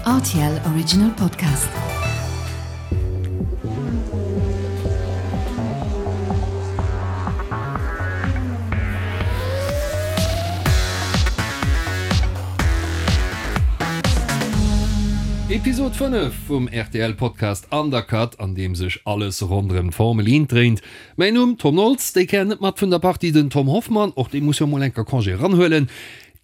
Rtl Original Podcast. Episod 5 vum rtl Podcast Undercut, an deem sech alles ronderëm d'Formel 1 dréint. Mäin Numm, Tom Nolz, déi Kéier net mat vun der Partie den Tom Hoffmann, och dee muss jo mol enker Congé eranhuelen.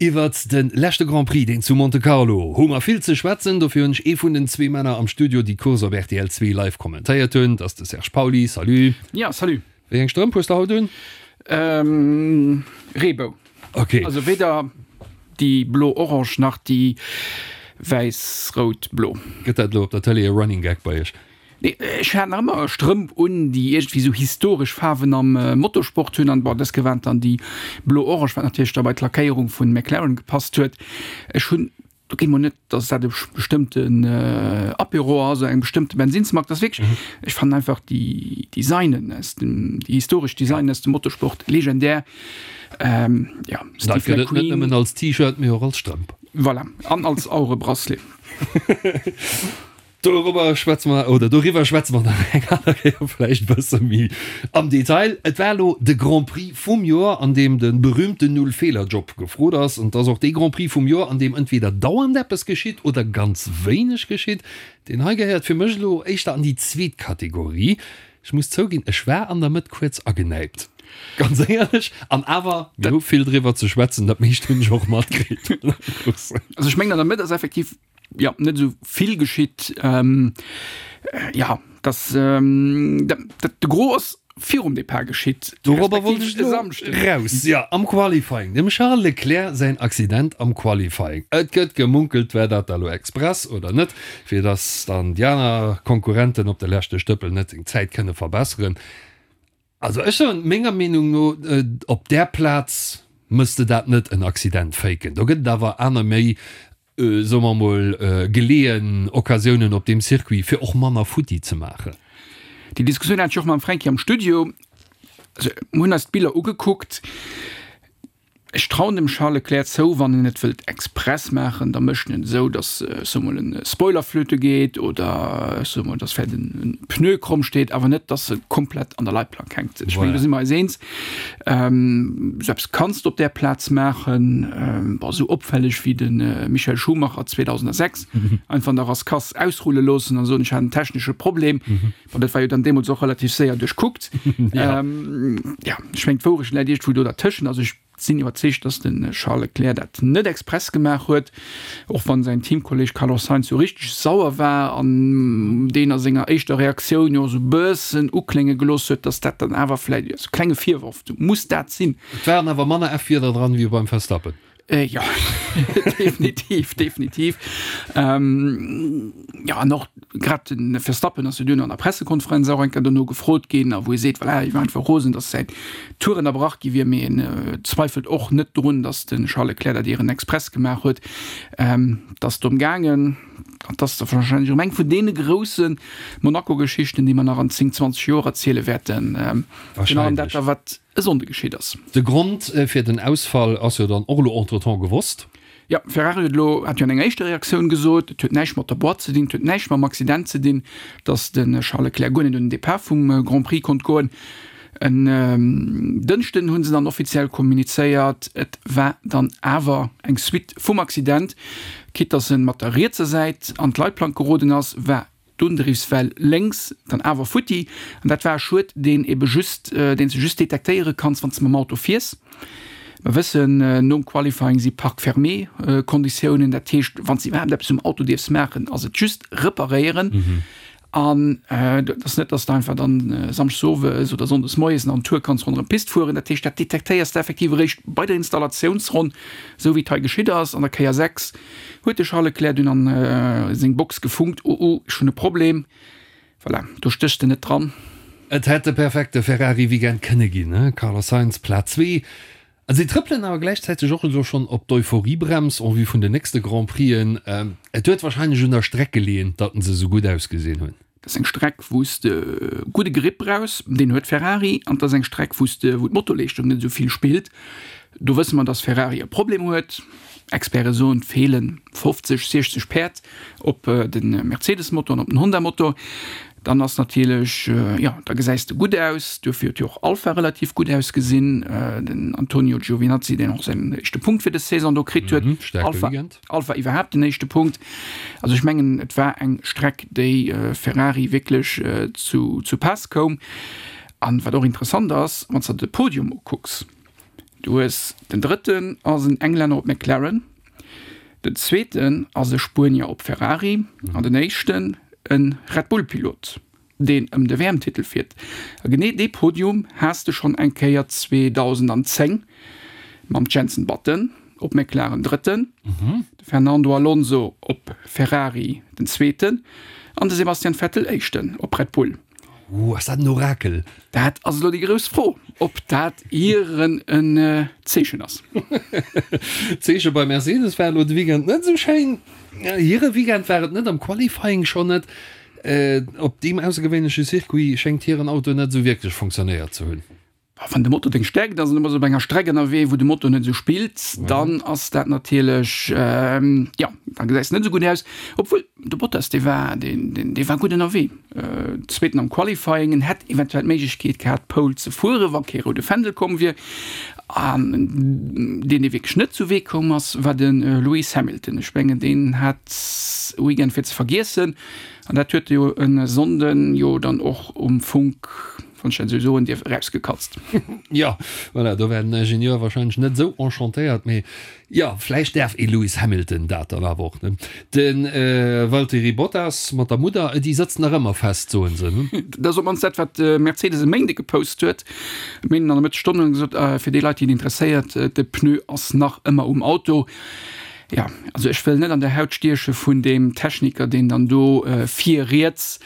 Iwwert de leschte Grand Prix, deen zu Monte Carlo, hu mer vill ze schwätzen. Dofir hunn ech ee vun den zwee Männer am Studio, déi d'Course op rtl 2 live kommentéiert hunn. Dat ass de Serge Pauly. Salut. Ja, salut. Wéi eng Strëmp hues de haut un? Reebou. Ok. Also weder déi blo-orange nach déi wäiss-rout-blo. Gëtt dat elo op der Tëlee e Running Gag bei iech? Nee, ech hat nach ëmmer Strëmp un, déi iergendwéi sou historesch Faarwen am Motorsport hunn. An bon, dës Kéier waren et dann déi blo-orange, wat natierlech da bei d'Lackéierung vun McLaren gepasst huet. Ech hunn, do geet mol net, dass dat e bestëmmten Apéro ass oder eng bestëmmte Bensinnsmark, dat ass wierklech, ech fannen einfach déi Designen aus dem, déi historesch Designen aus dem Motorsport legendär. Jo, Steve Dat gëtt et net McQueen. nëmmen als T-Shirt, mee och als Strëmp. Voilà, an als Auerebracelet. Dorobber schwätze mer, oder doriwwer schwätze mer nach eng aner Kéier vläicht e bësse méi am Detail. Et war elo de Grand Prix vum Joer, an deem de berühmten Null-Feeler-Job gefrot ass. An et ass och dee Grand Prix vum Joer, an deem entweder dauernd eppes geschitt oder ganz wéineg geschitt. Deen hei gehéiert fir mech elo éischter an déi zweet Kategorie. Ech muss zouginn, ech war an der Mëtt kuerz agenäipt, ganz éierlech. An awer, mir hu vill driwwer ze schwätzen, dat meescht hunn ech och matkritt. Also ech mengen, an der Mëtt ass effektiv jo net esou vill geschitt. Jo, dass dat de Gros ass virum Depart geschitt, Dorobber wollt ech respektiv e elo Samschdeg. raus. Jo, am Qualifying, dem Charles Leclerc säin Accident am Qualifying. Et gëtt gemunkelt, war dat da elo express oder net, fir dass dann déi aner Konkurrenten op de leschte Stëppel net seng Zäit kënne verbesseren. Also ech soen, menger Meenung no, op där Plaz mëss de dat net en Accident faken. Do gëtt et awer aner méi soe mer emol, geleeën Occasiounen op deem Circuit, fir och manner futti ze maachen. Déi Diskussioun hat ech och mam Fränki am Studio. Also, mir hunn eis d'Biller ugekuckt. Ech trauen dem Charles Leclerc zou, wann en et wëllt express maachen, da mécht en et esou, datt, ech soe mol, e Spoiler flöte geet oder, ech soe mol, datt vläicht en Pneu kromm steet, awer net, datt e komplett an der Leitplank hänkt. Ech mengen, do si mer eis eens. Sou eppes kanns de op där Plaz maachen, bon, sou opfälleg wéi de Michael Schumacher 2006, einfach an der Rascasse ausrulle loossen an soen, ech hat en technesche Problem. Bon, dat war jo dann deemools och relativ séier duerchkuckt. Jo, ech mengen, d'Wourecht läit iergendwou do dertëschent. Also ech sinn iwwerzeegt, dass de Charles Leclerc dat net express gemaach huet, och wann säin Teamkolleeg Carlos Sainz sou richteg sauer war an deen a senger éischter Reaktioun jo sou bëssen uklénge gelooss huet, dass dat dann awer vläicht e klenge Virworf muss dat sinn. Et waren awer manner F-Wierder dran wéi beim Verstappen. Jo, definitiv, definitiv. Jo, an och grad de Verstappen ass jo duerno an der Pressekonferenz och eng Kéier dono gefrot ginn, a wou e seet, voilà, hie war einfach rosen, datt säin Tour ënnerbrach gi wier, mee en zweifelt och net drun, datt de Charles Leclerc dat ieren express gemaach huet. Et ass drëm gaangen, an et ass da warscheinlech erëm eng vun deene grousse Monaco-Geschichten, déi mer nach an 10, 20 Joer erziele wäerten, virun allem dat da wat e Sonnde geschitt ass. De Grond fir den Ausfall ass jo dann och elo entretemps gewosst. Jo, Ferrari huet elo, hat jo an enger éischter Reaktioun gesot, et huet näischt mat der Boîte ze dinn, et huet näischt mam Accident ze dinn, datt de Charles Leclerc guer net un den Depart vum Grand Prix konnt goen. En Dënschden hu se dann offiziell kommunizéiert, et war dann awer eng Suite vum Accident. Quitte datt en mat der rietser Säit an d'Leitplank geroden ass, war D'Undriffswell lénks dann awer futti, an dat war e Schued, deen ebe just, deen s de just detektéiere kanns, wann s de mam Auto fiers. Mer wëssen, nom Qualifying si Parc fermé Konditiounen, dat heescht, wann s de iwwerhaapt eppes um Auto dierfs maachen, ass et just reparéieren. An et ass net, dass de einfach dann samschdes owes oder sonndes moies nach en Tour kanns ronderëm d'Pist fueren. Dat heescht, dat detektéiers de effektiv eréischt bei der Installatiounsronn, esou wéi et hei geschitt ass an der Kéier 6. Huet de Charles Leclerc dunn an seng Box gefunkt, Oh oh, ech hunn e Problem. Voilà, do stéchs de net dran. Et hätt de perfekte Ferrari-Weekend kënne ginn, Carlos Sainz, Plaz 2. A si trëppelen awer gläichzäiteg och elo schonn op d'Euphorie-Brems en vue vun den nächste Grand Prixen. Et huet warscheinlech un der Streck geleeën, datt se esou gutt ausgesinn hunn. Dat ass eng Streck, wou s de gudde Grip brauchs, deen huet Ferrari, an et ass eng Streck, wou s de, wou d'Motorleeschtung net esou vill spillt. Do wësse mer, datt Ferrari e Problem huet. Experte soen, et feelen 50, 60 Päerd op de Mercedes-Motor an op den Honda-Motor. Dann ass natierlech, jo, da gesäis de gutt aus. Duerfir huet jo och Alfa relativ gutt ausgesinn. Den Antonio Giovinazzi, deen och säin éischte Punkt fir dës Saison do kritt huet. Alfa, Alfa iwwerhaapt den éischte Punkt. Also ech mengen, et war eng Streck, déi Ferrari wierklech zu, zu Paass koum. An wat och interessant ass, wann s de de Podium ukucks, Du hues, den drëtten ass en Englänner op McLaren, den zweeten ass e Spuenier op Ferrari an den éischten e Red Bull Pilot, deen ëm de WM-Titel fiert. A genee dee Podium has de schonn eng Kéier 2010 mam Jenson Button op McLaren drëtten, de Fernando Alonso op Ferrari den zweeten an de Sebastian Vettel éischten op Red Bull. Ooh, ass dat en Orakel? Dat ass elo déi grouss Fro, ob dat ieren en Zeechen ass. D'Zeeche bei Mercedes war elo de Weekend net esou schéin. Hire Weekend war et net, am Qualifying schonn net. Op deem aussergewéinleche Circuit schéngt hiren Auto net esou wierklech fonctionnéiert ze hunn. Wann de Motor deng Stäerkt ass an du bass op enger Streck ënnerwee, wou de Motor net esou spillt, dann ass dat natierlech, jo, da gesäis de net esou gutt aus. Obwuel de Bottas, dee war, deen, dee war gutt ënnerwee, Zweeten am Qualifying, en hätt eventuell d'Méiglechkeet gehat, d'Pole ze fueren, wa kee roude Fändel komm wier. An deen, dee wierklech net zu Wee koum ass, war de Lewis Hamilton. Ech mengen, deen hat e Weekend fir ze vergiessen an dat huet e jo e Sonnden jo dann och um Funk, wann ech dat esou soen dierf, erausgekatzt. Jo, voilà, do war den Ingenieur wahrscheinlech net esou enchantéiert, mee jo, vläicht däerf ee Lewis Hamilton dat dann awer och, ne? De Valtteri Bottas mat der Mudder, déi sëtzt nach ëmmer fest, soen se, ne? Dat ass op d'mannst dat, wat Mercedes e Méinde gepost huet. E Méinden an der Mëttesstonn hunn se gesot, fir déi Leit, déi et interesséiert, de Pneu ass nach ëmmer um Auto. Jo, also ech wëll net an der Haut stieche vun deem Techniker, deen dann do vir riets,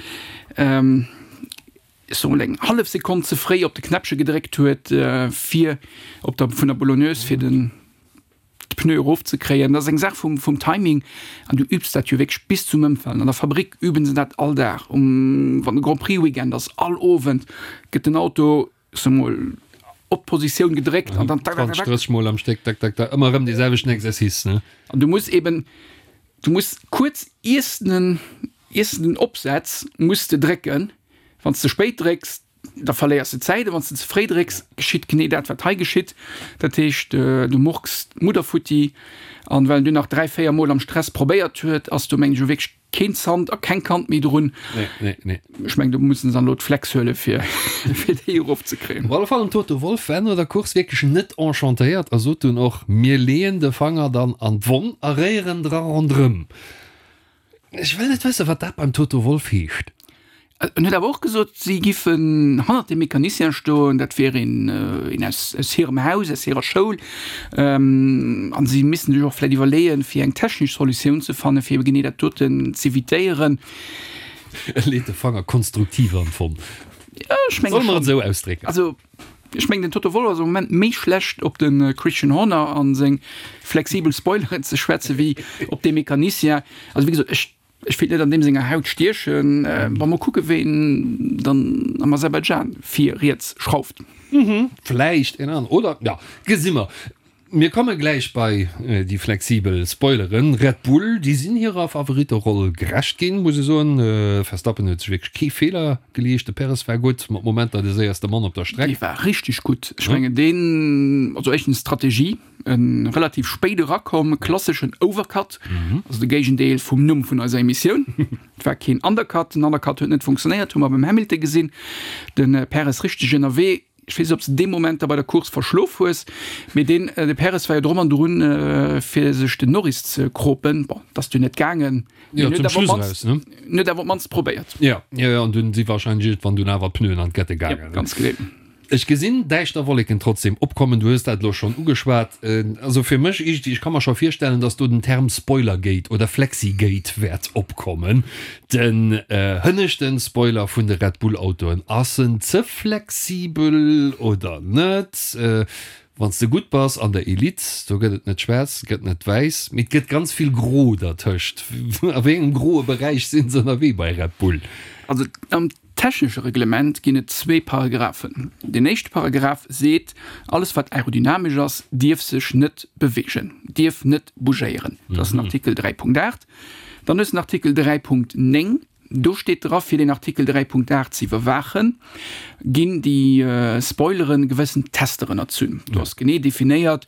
ech soe mol eng hallef Sekonn ze fréi op de Knäppche gedréckt huet, fir op der vun der Boulonneuse fir den d'Pneu erofzekréien. Dat ass eng Saach vum vum Timing an du übs dat jo wierklech bis zum Ëmfalen. An der Fabrick üben se dat all Dag um wann de Grand Prix Weekend ass, all Owend gëtt den Auto, ech soe mol, op d'Positioun gedréckt an dann tak, tak, tak, tak. 20, 30 Mol am Stéck, tak, tak, tak, ëmmer erëm dee selwechten Exercice, ne? An du muss eben, du muss kuerz iers den Iers de den opsetz, muss de drécken. Wann s de spéit drécks, da verléiers de Zäit, a wann s de ze fréi drécks, geschitt genee dat, wat hei geschitt. Dat heescht, du murks d'Mudder futti. An well en dunn nach 3, 4 Mol am Stress probéiert huet, ass do, mengen ech, elo wierklech keen Zant a keng Kant méi drun. Nee, nee, nee. Ech mengen, do mussen se dann elo d'Flex huelen, fir fir déi erofzekréien. Op alle Fall, den Toto Wolff war no der Course wierklech net enchantéiert a sot dunn och, Mir leeën de Fanger dann an d'Wonn a réieren dra ronderëm. Ech wëll net wëssen, wat dat beim Toto Wolff heescht. En huet awer och gesot, si giffen hannert dem Mecanicien stoen, dat wier een een aus aus hirem Haus, aus hirer Schoul, an si missten sech och vläicht iwwerleeën, fir eng technesch Solutioun ze fannen, fir ebe genee dat doten z'evitéieren. E leet de Fanger konstruktiv an d'Wonn. Jo, ech menge schonn. Solle mer et esou ausdrécken? Also, Ech mengen den Toto Wolff ass am Moment méi schlecht op de Christian Horner an seng flexibel Spoileren ze schwätzen wéi op dee Mecanicien. Also wéi gesot, ech ech wéilt net an deem senger Haut stiechen. Wa mer kucke ween dann am Aserbaidschan vir riets schrauft. Vläicht een aneren, oder? Jo, gesi mer. Mir komme gläich bei déi flexibel Spoileren. Red Bull, déi sinn hirer Favoritteroll gerecht ginn, muss ee soen. Verstappen huet sech wierklech kee Feeler geleescht. De Perez war gutt, mat Momenter de séierste Mann op der Streck. Dee war richteg gutt. Ech mengen deen, also éischtens Strategie, e relativ spéit erakomm, klasseschen Overcut, also de Géigendeel vum Numm vun eiser Emissioun. Et war keen Undercut, den Undercut huet net funktionéiert, hu mer beim Hamilton gesinn. De Perez richteg ënnerwee. Ech weess net, ob s de dee Moment da bei der Course verschlof hues, mee deen, de Perez war jo drum an drun, fir sech den Norris ze kropen. Bon, dat ass dunn net gaangen, mee Jo, en huet zum awer op Schluss d'mannst, eraus, ne? en huet awer op d'mannst probéiert. Jo, jo, jo, an dunn si wahrscheinlech iergendwann dunn awer d'Pneuen an d'Kette Jo, gaangen, ne? ganz genee. Ech gesinn däischter Wolleken trotzdem opkommen. Du hues dat elo schonn ugeschwat. Also fir mech iergendwéi, ech ka mer scho virstellen, dass do den Term Spoilergate oder Flexigate wäert opkommen. Den hënneschten Spoiler vun de Red Bull Autoen, ass en ze flexibel oder net? Wanns de gutt bass an der Elite, do gëtt et net schwaarz, et gëtt net wäiss, mee et gëtt ganz vill gro dertëscht. A wéi engem groe Beräich sinn se ënnerwee bei Red Bull? Also am. technesche Reglement ginn et zwee Paragraphen. Deen éischte Paragraph seet, alles wat aerodynamesch ass, dierf sech net beweegen, dierf net bougéieren. Dat ass den Artikel 3.8. Dann hues de den Artikel 3.9. Do steet dra, fir deen Artikel 3.8 ze iwwerwaachen, ginn déi Spoileren gewëssen Tester ënnerzunn. Do ass genee definéiert,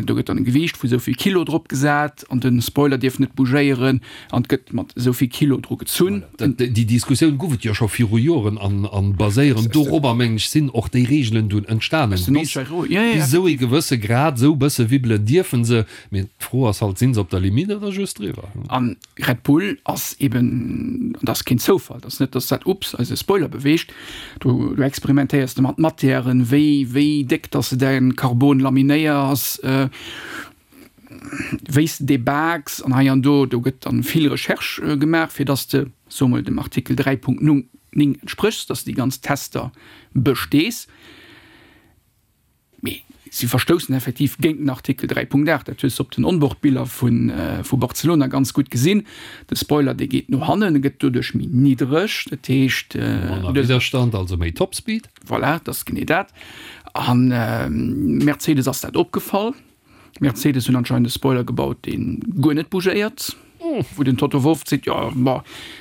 do gëtt dann e Gewiicht vu sou vill Kilo drop gesat an de Spoiler dierf net bougéieren an et gëtt mat esou vill Kilo dru gezunn. Déi Diskussioun gouf et jo scho viru Joren an baséierend dorobber, mengen ech, sinn och déi Reegelen dunn entstanen. Bis esou ee gewësse Grad, esou bësse wibbelen dierfe se, mee d'Fro ass halt, sinn se op der Limite oder just driwwer? Red Bull ass eben, an dat ass keen Zoufall, dat ass net, dass dat, ups, eise Spoiler beweegt, do do experimentéiers de mat Matièren, wéi wéi déck dass de däin Carbon laminéiers, wéi s de dee baaks an hei an do. Do gëtt dann vill Recherche gemaach, fir dass de, soe mol, dem Artikel 3.9 entspréchs, dass de déi ganz Tester bestees. Mee si verstoussen effektiv géint den Artikel 3.8. Dat hues de op den Onboardbiller vu Barcelona ganz gutt gesinn. De Spoiler, dee geet no hannen, e gëtt doduerch méi niddereg. Dat heescht. Manner Widderstand, also méi Topspeed. Voilà, dat ass genee dat. A Mercedes ass dat opgefall. Mercedes hunn anscheinend e Spoiler gebaut, dee guer net bougéiert, wou den Toto Wolff seet, jo, bon,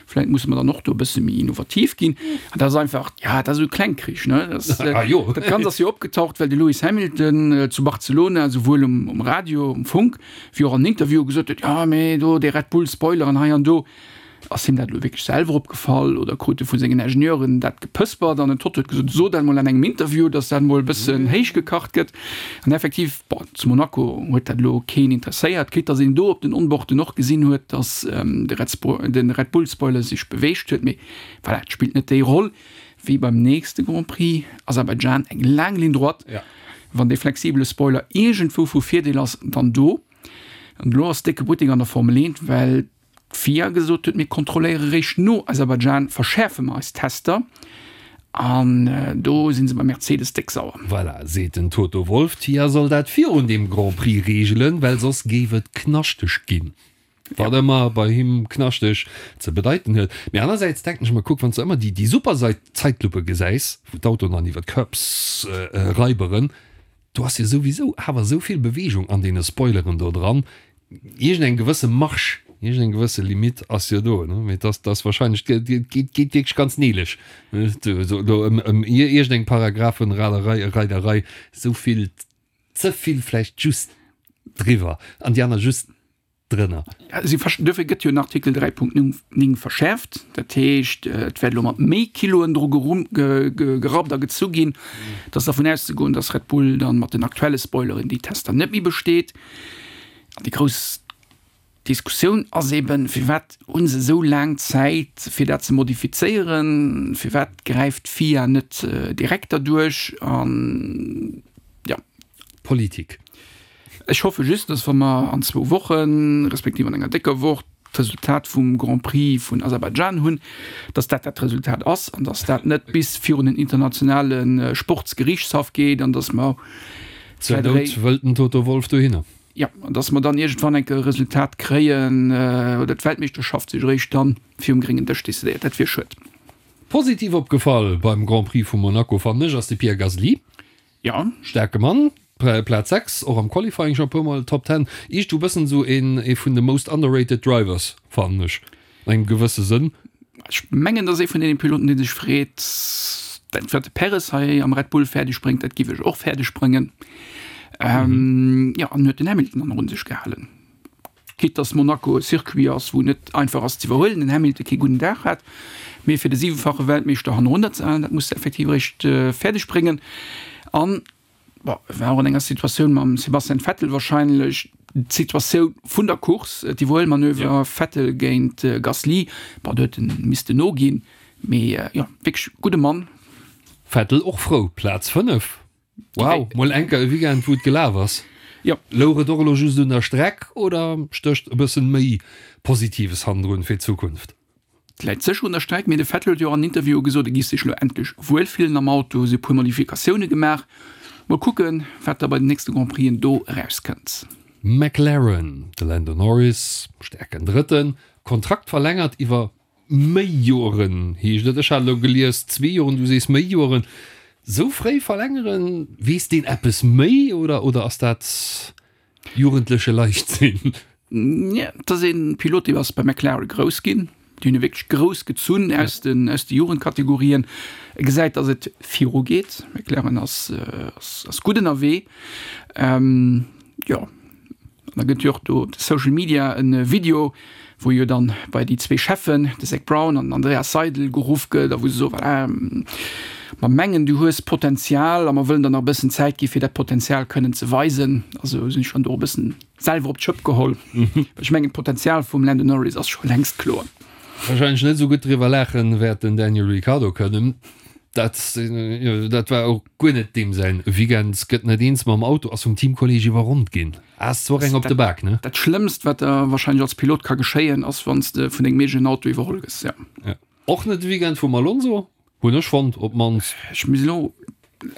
vläit musse mer dann och do e bësse méi innovativ ginn. An dat ass einfach, ja, dat ass esou Klengkrich, ne? Dat, dat Ganzt ass jo opgetaucht, well de Lewis Hamilton zu Barcelona souwuel um Radio, um Funk, wéi och an Interviewe gesot huet, jo, mee do dee Red Bull Spoiler an hei an do. Ass him dat elo wierklech selwer opgefall oder krut e vu sengen Ingenieuren dat gepëspert an den Toto huet gesot, so dat mol an engem Interview, datt dat mol e bëssen héich gekacht gëtt. An effektiv, bon, zu Monaco huet dat elo keen interesséiert, quitte datt een do op den Onboarden och gesinn huet, datt de Red Spo de Red Bull Spoiler sech beweegt huet, mee voilà, et spillt net déi Roll wéi beim nächste Grand Prix, Aserbaidschan, eng laang Ligne droite. Wann dee flexibele Spoiler iergendwou vu Virdeel ass, dann do. An elo ass décke Buttek an der Formel 1, well D'FIA gesot huet, mir kontrolléiere réischt no Aserbaidschan, verschäerfe mer eis Tester. An do si se bei Mercedes déck sauer. Voilà, seet den Toto Wolff, d'FIA soll dat virun deem Grand Prix reegelen, well soss géif et knaschteg ginn. Wat ëmmer bei him knaschteg ze bedeiten huet. Mee anersäits denken ech mer, kuck, wann s de ëmmer déi super Zäitluppe gesäis, wou d'Autoen dann iwwer d'Curbs raiberen, Do ass jo souwisou awer esou vill Bewegung an deene Spoileren do dran. Iergend eng gewësse Marge, iergend eng gewësse Limite ass jo do, ne? Mee dass dass wahrscheinlech, et geet geet wierklech ganz neelech, ne, do do ëm ëm iergend eng Paragraphenraderei, Reiderei, esou vill, ze vill vläicht just driwwer an déi aner just drënner. Si duerfir gëtt jo den Artikel 3.9 verschäerft. Dat heescht, et wäert elo mat méi Kiloen dru gerappt a gezu ginn. Et ass dervun auszegoen, datt Red Bull dann mat den aktuelle Spoileren déi Tester net méi besteet. An déi grouss Diskussioun ass eben, Firwat hu se esou laang Zäit, fir dat ze modifizéieren? Firwat gräift d'FIA net direkt derduerch? An jo. Politik. Ech hoffe just, dass wa mer an zwou Wochen, respektiv an enger décker Woch, d'Resultat vum Grand Prix vun Aserbaidschan hunn, dass dat dat Resultat ass an dass dat net bis virun den internationale Sportsgeriichtshaff geet an dass mer Zur Nout wëllt den Toto Wolff dohinner. Jo, an dass mer dann iergendwann eng Kéier e Resultat kréien oder d'Weltmeeschterschaft sech eréischt dann virum gréngen Dësch decidéiert. Dat wier schued. Positiv opgefall beim Grand Prix vu Monaco, fannen ech, ass de Pierre Gasly. Jo. Staarke Mann, Plaz 6, och am Qualifying scho e puer mol Top 10. Iergendwou bëssen esou een ee vun de most underrated drivers, fannen ech, an engem gewësse Sënn. Ech mengen, dat ass ee vun deene Piloten, dee sech freet, dat wat de Perez hei am Red Bull fäerdeg bréngt, dat giff ech och fäerdeg bréngen. Jo, an huet den Hamilton dann och un sech gehalen. Quitte dass Monaco e Circuit ass, wou net einfach ass ze iwwerhuelen, den Hamilton kee gudden Dag hat, mee fir de siwefache Weltmeeschter hannerunner ze halen, dat muss de effektiv eréischt fäerdeg bréngen. An, bon, e war och an enger Situatioun mam Sebastian Vettel wahrscheinlech d'Situatioun vun der Course, d'Iwwerhuelmanöver Vettel géint Gasly, bon, do huet en missten noginn, mee jo, wierklech gudde Mann. Vettel och frou, Plaz 5. Wow, mol enker e Weekend wou et gelaf ass. Jo. Louch et och elo just un der Streck oder stécht e bëssen méi Positives hannendrun fir d'Zukunft? Et läit sécher un der Streck, mee de Vettel huet jo och an Interviewe gesot, e giff sech elo endlech wuel fillen am Auto, si hu puer Modifikatioune gemaach. Mol kucken, wat da bei den nächste Grand Prixen do erauskënnt. McLaren, de Lando Norris, staarken Drëtten, Kontrakt verlängert iwwer. méi Joren, heescht et. Ech hat elo gelies zwee Joren, du sees méi Joren. Sou fréi verlängeren, weess deen eppes méi oder, oder ass dat jugendleche Leichtsinn? Et ass ee Pilot, dee ass bei McLaren grouss ginn. Déi hunn e wierklech grouss gezunn aus den, aus de Jugendkategorien. E gesäit, datt et virugeet. McLaren ass, ass, ass gutt ënnerwee. Jo. An da gëtt jo och do op de Social Media e Video, wou jo dann bei déi zwee Cheffen, de Zac Brown an den Andreas Seidl, geruff gëtt a wou se soen, voilà, mer mengen du hues Potenzial a mer wëllen der nach e bëssen Zäit gi fir dat Potenzial kënnen ze weisen. Also sinn ech dann do e bëssen selwer op d'Schëpp geholl, well ech mengen d'Potenzial vum Lando Norris ass scho längst kloer. Wahrscheinlech net esou gutt driwwer laachen wäert den Daniel Ricciardo kënnen. Dat, dat war och guer net deem säin Weekend. Gëtt net eens mam Auto, ass vum Teamkolleeg iwwerronnt ginn. Ass zwar eng op de Bak, ne? Dat Schlëmmst, wat der wahrscheinlech als Pilot ka geschéien, ass wann s de vun dengem eegenen Auto iwwerholl gëss, ja. Ja. Och net de Weekend vum Alonso, hunn ech fonnt, op d'mannst. Ech muss elo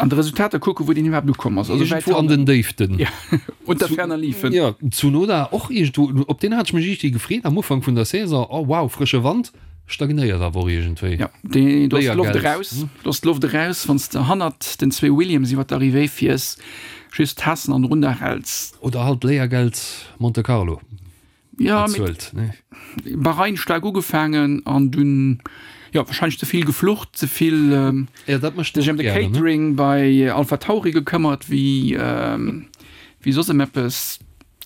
an de Resultater kucken, wou deen iwwerhaapt ukomm ass. Also wäit Iergendwou an den Déiften. Ja, unter ferner liefen. Ja, Tsunoda och iergendwou, op deen hat ech mech iergendwéi gefreet am Ufank vun der Saison, oh wow, frësche Wand. Stagnéiert awer och iergendwéi. Ja, dee, do ass d'Loft eraus. Do ass d'Loft eraus, wann s de hannert den zwee Williams iwwer d'Arrivée fiers, just d'Taassen an erunner häls. Oder halt Léiergeld Monte Carlo Ja, bezuelt, ne? Bahrain staark ugefaangen an dunn, jo, warscheinlech ze vill geflucht, ze vill Ja, dat mécht sech ëm de Catering bei Alpha Tauri gekëmmert, wéi, wéi soss ëm eppes.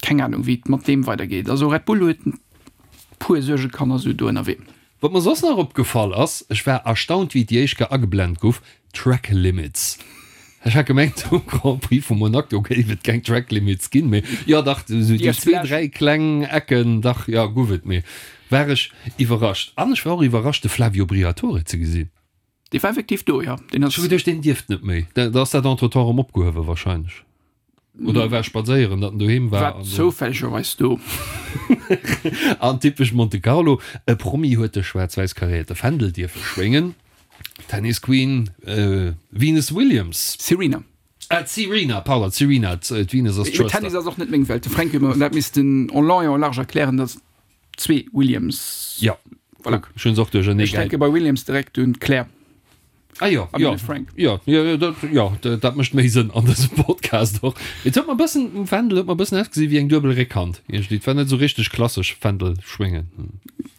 Keng Anung, wéi et mat deem weidergeet. Also Red Bull huet puer Suergekanner sou do ënnerwee. Wat mer soss nach opgefall ass, ech war erstaunt wéi déi éischt Kéier ageblend guff, Track Limits. Ech hat gemengt um Grand Prix vu Monaco géif et keng Track Limits ginn, mee jo dach, esou déi zwee, dräi kleng Ecken, dach jo guff et, mee war ech iwwerrascht. An ech war och iwwerrascht de Flavio Briatore ze gesinn. Dee war effektiv do, jo. Deen ass. Ech hu geduecht deen dierft net méi, da ass dat entretemps erëm opgehuewe wahrscheinlech. Oder e war spadséieren, datt en doheem war. War zoufällegerweis do. An typesch Monte Carlo, e Promi huet de schwaarz-wäiss karéierte Fändel dierfe schwéngen, Tennis Queen Venus Williams. Serena. Ah, d'Serena, pardon, d'Serena, d'Venus ass d'Schwëster. Tennis ass och net meng Welt. De Fränk huet mer dat missten en long et en large erklären, datt zwee Williams. Ja, voilà. Ech hunn se och duerchernee Ech denke bei Williams direkt un d'Claire. Ah jo, jo, Frank. Jo, jo, dat, jo, dat mécht méi Sënn an dësem Podcast och. Et huet mer e bëssen, um Fändel huet mer e bëssen ausgesi wéi eng duebel Réckhand iergendwéi. Et war net esou richteg klassesch Fändel schwéngen.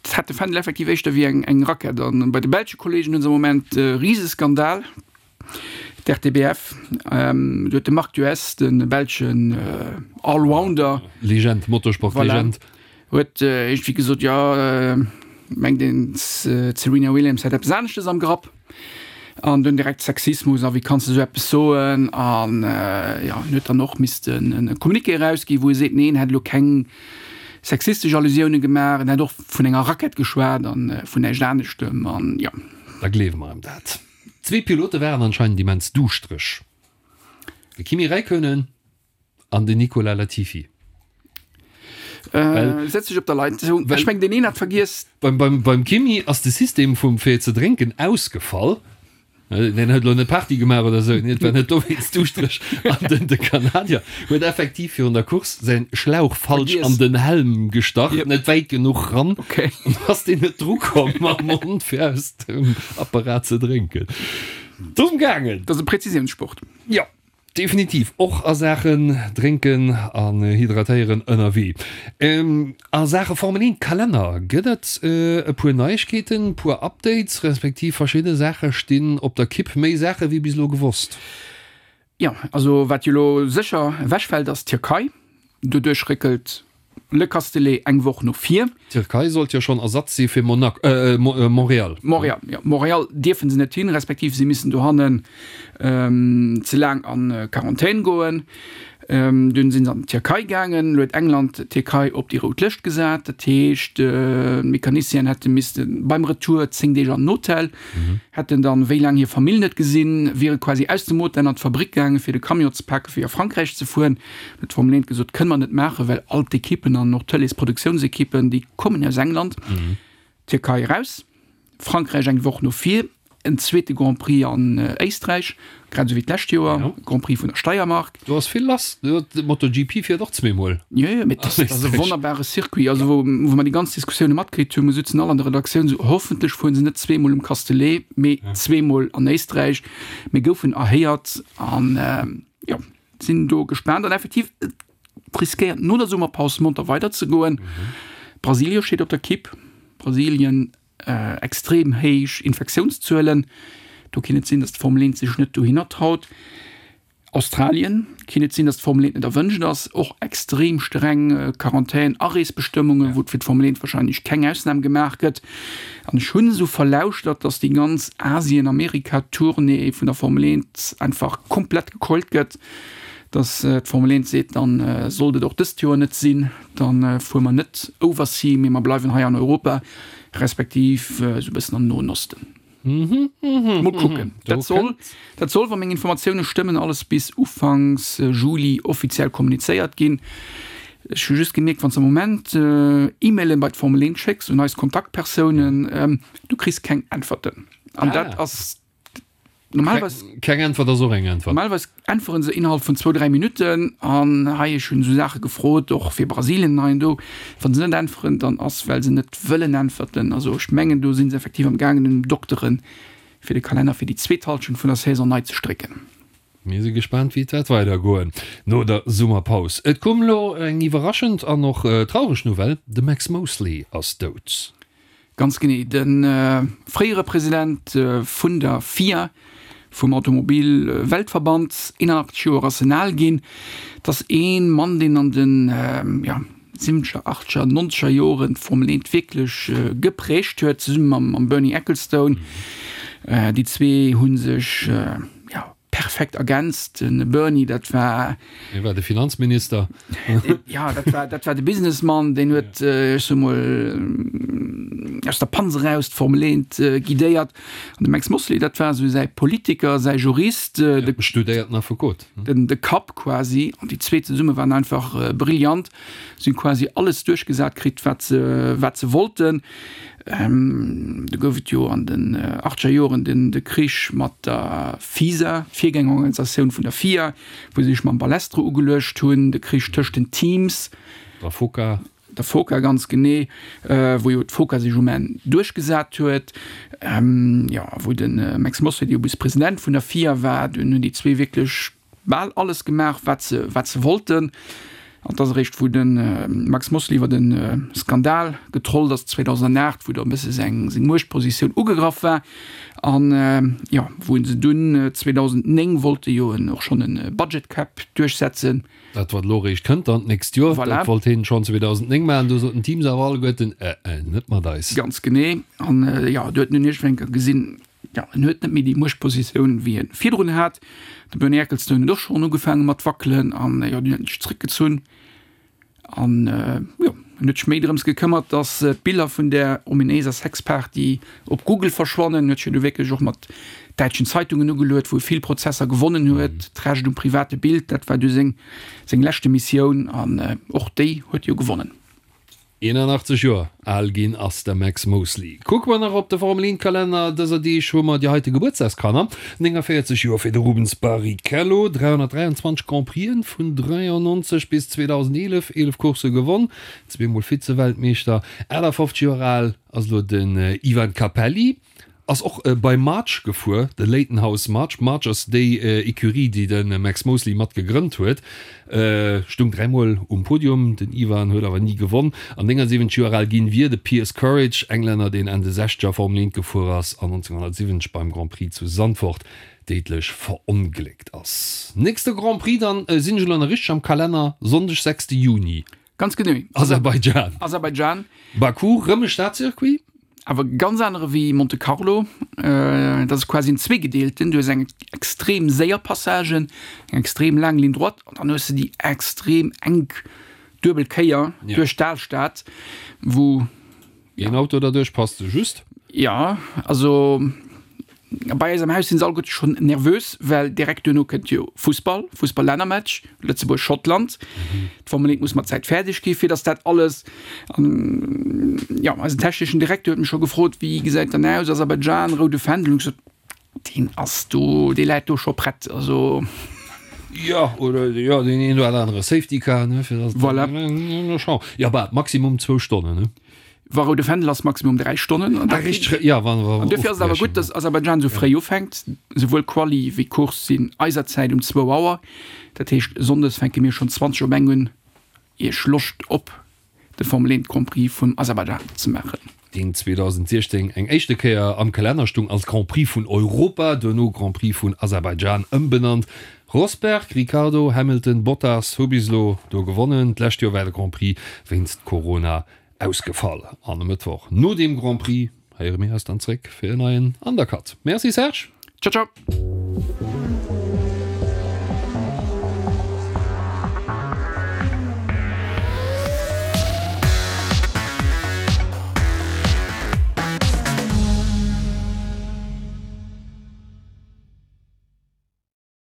Et hat de Fändel effektiv éischter wéi eng, eng Rackett. An bei de belsche Kollegen hunn se am Moment e Riseskandal, d'RTBF. Do huet de Marc Duez, de belschen Allrounder, Legend, Motorsport-Legend. Voilà. Huet iergendwéi gesot, jo, mengt een, d'Serena Williams hätt eppes aneschtes am Grapp. An dunn direkt Sexismus a wéi kanns de esou eppes soen? An jo, en huet dann och missten e Communiqué erausginn, wou e seet, nee, en hätt elo keng sexistesch Allusioune gemaach, en hätt och vun enger Rackett geschwat a vun näischt aneschtem an jo. Da gleewe mer em dat. Zwee Pilote waren anscheinend immens duuschtereg, de Kimi Räikkönen An den Nicolas Latifi. Äh, setz dech op der Leitung. Ech meng den een hat vergiess. Beim, beim, beim Kimi ass de System vum fir ze drénken ausgefall. Äh, den huet lo net Party gemaach oder sou, et war net dowéinst duuschtereg. An den de Kanadier huet effektiv virun der Course säin Schlauch falsch an den Helm gestach, yep. net wäit genuch ran. Okay. An ass deen net drukomm mam Mond fir aus dem Apparat ze drénken. Domm gaangen. Dat ass e Präzisiounssport. Ja. Definitiv, och a Saachen drénken an hydratéieren ënnerwee. A Saache Formel 1 Kalenner gëtt et e puer Neiegkeeten, puer Updates, respektiv verschidde Saache stinn op der Kipp, méi Saache wéi bis elo gewosst. Jo, also wat jo elo sécher ewechfält ass d'Tierkei. Doduerch réckelt Le Castellet eng Woch no vir. D'Tierkei sollt jo schonn Ersatz si fir Monaco, Montréal. Montréal, jo. Montréal dierfe se net hin, respektiv si missen dohannen ze laang a Quarantän goen. Dunn si se an d'Tierkei gaangen. Elo huet England d'Tierkei op déi rout Lëscht gesat. Dat heescht, d'Mecanicienen hätte misste beim Retour 10 Deeg an den Hotel, hätten dann wéi laang hir Famill net gesinn, wiere quasi aus dem Hotel an d'Fabrick gaangen, fir de Camion ze paken, fir a Frankräich ze fueren. Huet d'Formel 1 gesot, kënne mer net maachen, well all d'Ekippen an och d'Tëleesproduktionsekippen, déi kommen aus England. Tierkei eraus, Frankräich eng Woch no vir. en zweete Grand Prix an Éisträich, grad esou wéi d'lescht Joer, Grand Prix vun der Steiermark. Do ass vill lass, MotoGP fiert och zweemol. Jo, jo, mee dat ass e wonnerbare Circuit. Also wou mer déi ganz Diskussioune matkritt hunn, mir sutzen all an der Redaktioun esou, hoffentlech fueren se net zweemol um Castellet, mee zweemol an Éisträich. Mir goufen erhéiert an jo, sinn do gespaant. An effektiv, et riskéiert no der Summerpaus monter weiderzegoen. Brasilien steet op der Kipp. Brasilien Extrem héich Infektiounszuelen, do kinnt et sinn, datt d'Formel 1 sech net dohinner traut. Australien, kinnt et sinn, datt d'Formel 1 net erwënscht ass, och extrem streng Quarantän, Areesbestëmmungen, wou fir d'Formel 1 warscheinlech keng Ausnam gemaach gëtt. An ech hunn esou verlauschtert, datt déi ganz Asien-Amerika-Tournée vun der Formel 1 einfach komplett gekeult gëtt, datt d'Formel 1 seet, dann sollt et och dëst Joer net sinn. Dann fuere mer net oversea, mee mer bleiwen hei an Europa, respektiv esou e bëssen am Noen Osten. Mol kucken. Dat soll, dat soll, wa meng Informatioune stëmmen, alles bis ufanks Juli offiziell kommunizéiert ginn. Ech hu just gemierkt, wann s de am Moment E-Mailen bei d'Formel 1 schécks un eis Kontaktpersounen, du kriss keng Äntwerten. An dat ass Normalerweis, Keng Äntwert ass och eng Äntwert. Normalerweis äntweren se innerhalb vun zwou, dräi Minutten. An hei, ech hunn esou Saache gefrot, och fir Brasilien hei an do. Wa se net äntweren, dann ass, well se net wëllen äntwerten. Also ech mengen, do si se effektiv am gaangen un dokteren, fir de Kalenner fir déi zweet Hallschent vun der Saison nei ze strécken. Mir si gespaant, wéi et wäert weidergoen no der Summerpaus. Et koum elo eng iwwerraschend an och traureg Nouvelle, De Max Mosley ass dout. Ganz genee, de fréiere President vun der FIA, vum Automobil-Weltverband, 81 Joer ass en al ginn. Et ass ee Mann, deen an de siwwenzeger, achtzeger, nonzeger Joren d'Formel 1 wierklech geprägt huet, zesumme mam Bernie Ecclestone. Déi zwee hu sech, jo, Perfekt ergänzt. Den Bernie, dat war. Hie war de Finanzminister. Ja, dat war, dat war de Businessmann, deen huet, ech soe mol, aus der Panz eraus d'Formel 1 guidéiert. An de Max Mosley, dat war esou säi Politiker, säi Jurist, de. Studéierten Affekot. Den, de Kapp quasi. An déi zwee zesumme waren einfach brillant. Si hunn quasi alles duerchgesat kritt, wat se, wat se wollten. Do gouf et jo an den achtzeger Joren den de Krich mat der FISA, d'Virgängerorganisatioun vun der FIA, wou se sech mam Balestre ugeluecht hunn, de Krich tëscht den Teams. Der FOCA. Der FOCA, ganz genee, wou jo d'FOCA sech um Enn duerchgesat huet. Jo, wou de Max Mosley jo bis President vun der FIA war. Dunn hunn déi zwee wierklech bal alles gemaach, wat se, wat se wollten. An et ass eréischt, wou de Max Mosley iwwer e Skandal getrollt ass 2008, wou da e bësse seng, seng Muechtpositioun ugegraff war an, jo, wou se dunn 2009 wollte jo en och schonn e Budget Cap duerchsetzen. Dat, wat elo eréischt kënnt dann d'nächst Joer, Voilà. dat wollt hien schonn 2009 maachen. Do soten d'Teams awer alleguerten, Äh, äh, net mat eis. Ganz genee. An, jo, do huet en dunn iergendwann eng Kéier gesinn, Jo, en huet net méi déi Muechtpositioun, wéi en virdrun hat. De Bernie Ecclestone huet och schonn ugefaange mat wackelen an jo, dunn huet en sech zréckgezunn an jo, en huet sech méi drëms gekëmmert, datt d'Biller vun där ominéiser Sexparty op Google verschwannen. En huet sech jo du wierklech och mat däitschen Zeitungen ugeluet, wou e vill Prozesser gewonnen huet. D'Recht um private Bild, dat war du seng seng leschte Missioun an och déi huet e jo gewonnen. 81 Joer al ginn ass de Max Mosley. Kucke mer nach op de Formel 1 Kalenner dëser Deeg hu mer déi heite Gebuertsdagskanner, 49 Joer fir de Rubens Barrichello, 323 Grand Prixen vun 93 bis 2011, 11 Coursse gewonn, zweemol Vize-Weltmeeschter. 58 Joer al ass elo den Ivan Capelli. Ass och bei March gefuer, de Leyton House March. March ass déi Ecurie, déi de Max Mosley mat gegrënnt huet. Stung dräimol um Podium, den Ivan huet awer ni gewonn. An 79 Joer al ginn wier de Piers Courage, Englänner, deen Enn de Sechzeger Formel 1 gefuer ass an 1970 beim Grand Prix zu Zandvoort déidlech verongléckt ass. Nächste Grand Prix dann, sinn ech elo nach richteg am Kalenner, Sonndeg 6 Juni. Ganz genee. Aserbaidschan. Aserbaidschan. Baku, rëm e Stadcircuit. Awer ganz anere wéi Monte Carlo. Dat ass quasi en zweegedeelten. Du hues eng extrem séier Passage, eng extrem laang Ligne droite an dann hues de déi extrem enk duebel Kéier duerch d'Alstad, wou. Een Auto derduerch passt sou just. Jo, also bei eis am Haus sinn se alleguerte schonn nervös, well direkt duerno kënnt jo Fussball, Fussball-Lännermatch, Lëtzebuerg-Schottland. D'Formel 1 muss mat Zäit fäerdeg gi fir datt dat alles an jo, eisen techneschen Direkter huet mech scho gefrot, wéi gesäit dann aus, Aserbaidschan, roude Fändel. Hunn ech gesot. Deen ass do, dee läit do scho prett, also. Jo, oder jo, deen een oder anere Safety Car, ne, fir dass. Voilà. Jo, bah, maximum zwou Stonnen, ne? Wa roude Fändel ass, maximum 3 Stonnen. An ah, richtig, ja, wann, wann, an dofir ass et awer gutt, dass Aserbaidschan esou fréi ufänkt. Souwuel Quali wéi Course sinn eiser Zäit um zwou Auer. Dat heescht, sonndes fänke mir schonn 20 op eng un, Iech Loscht op de Formel 1 Grand Prix vun Aserbaidschan ze maachen. Deen 2016 eng éischte Kéier am Kalenner stung als Grand Prix vun Europa, duerno Grand Prix vun Aserbaidschan ëmbenannt. Rosberg, Ricciardo, Hamilton, Bottas hu bis elo do gewonnen. D'lescht Joer war de Grand Prix wéinst Corona ausgefall. An e Mëttwoch no deem Grand Prix héiere mir eis dann zréck fir en neien Undercut. Merci Serge. Ciao ciao.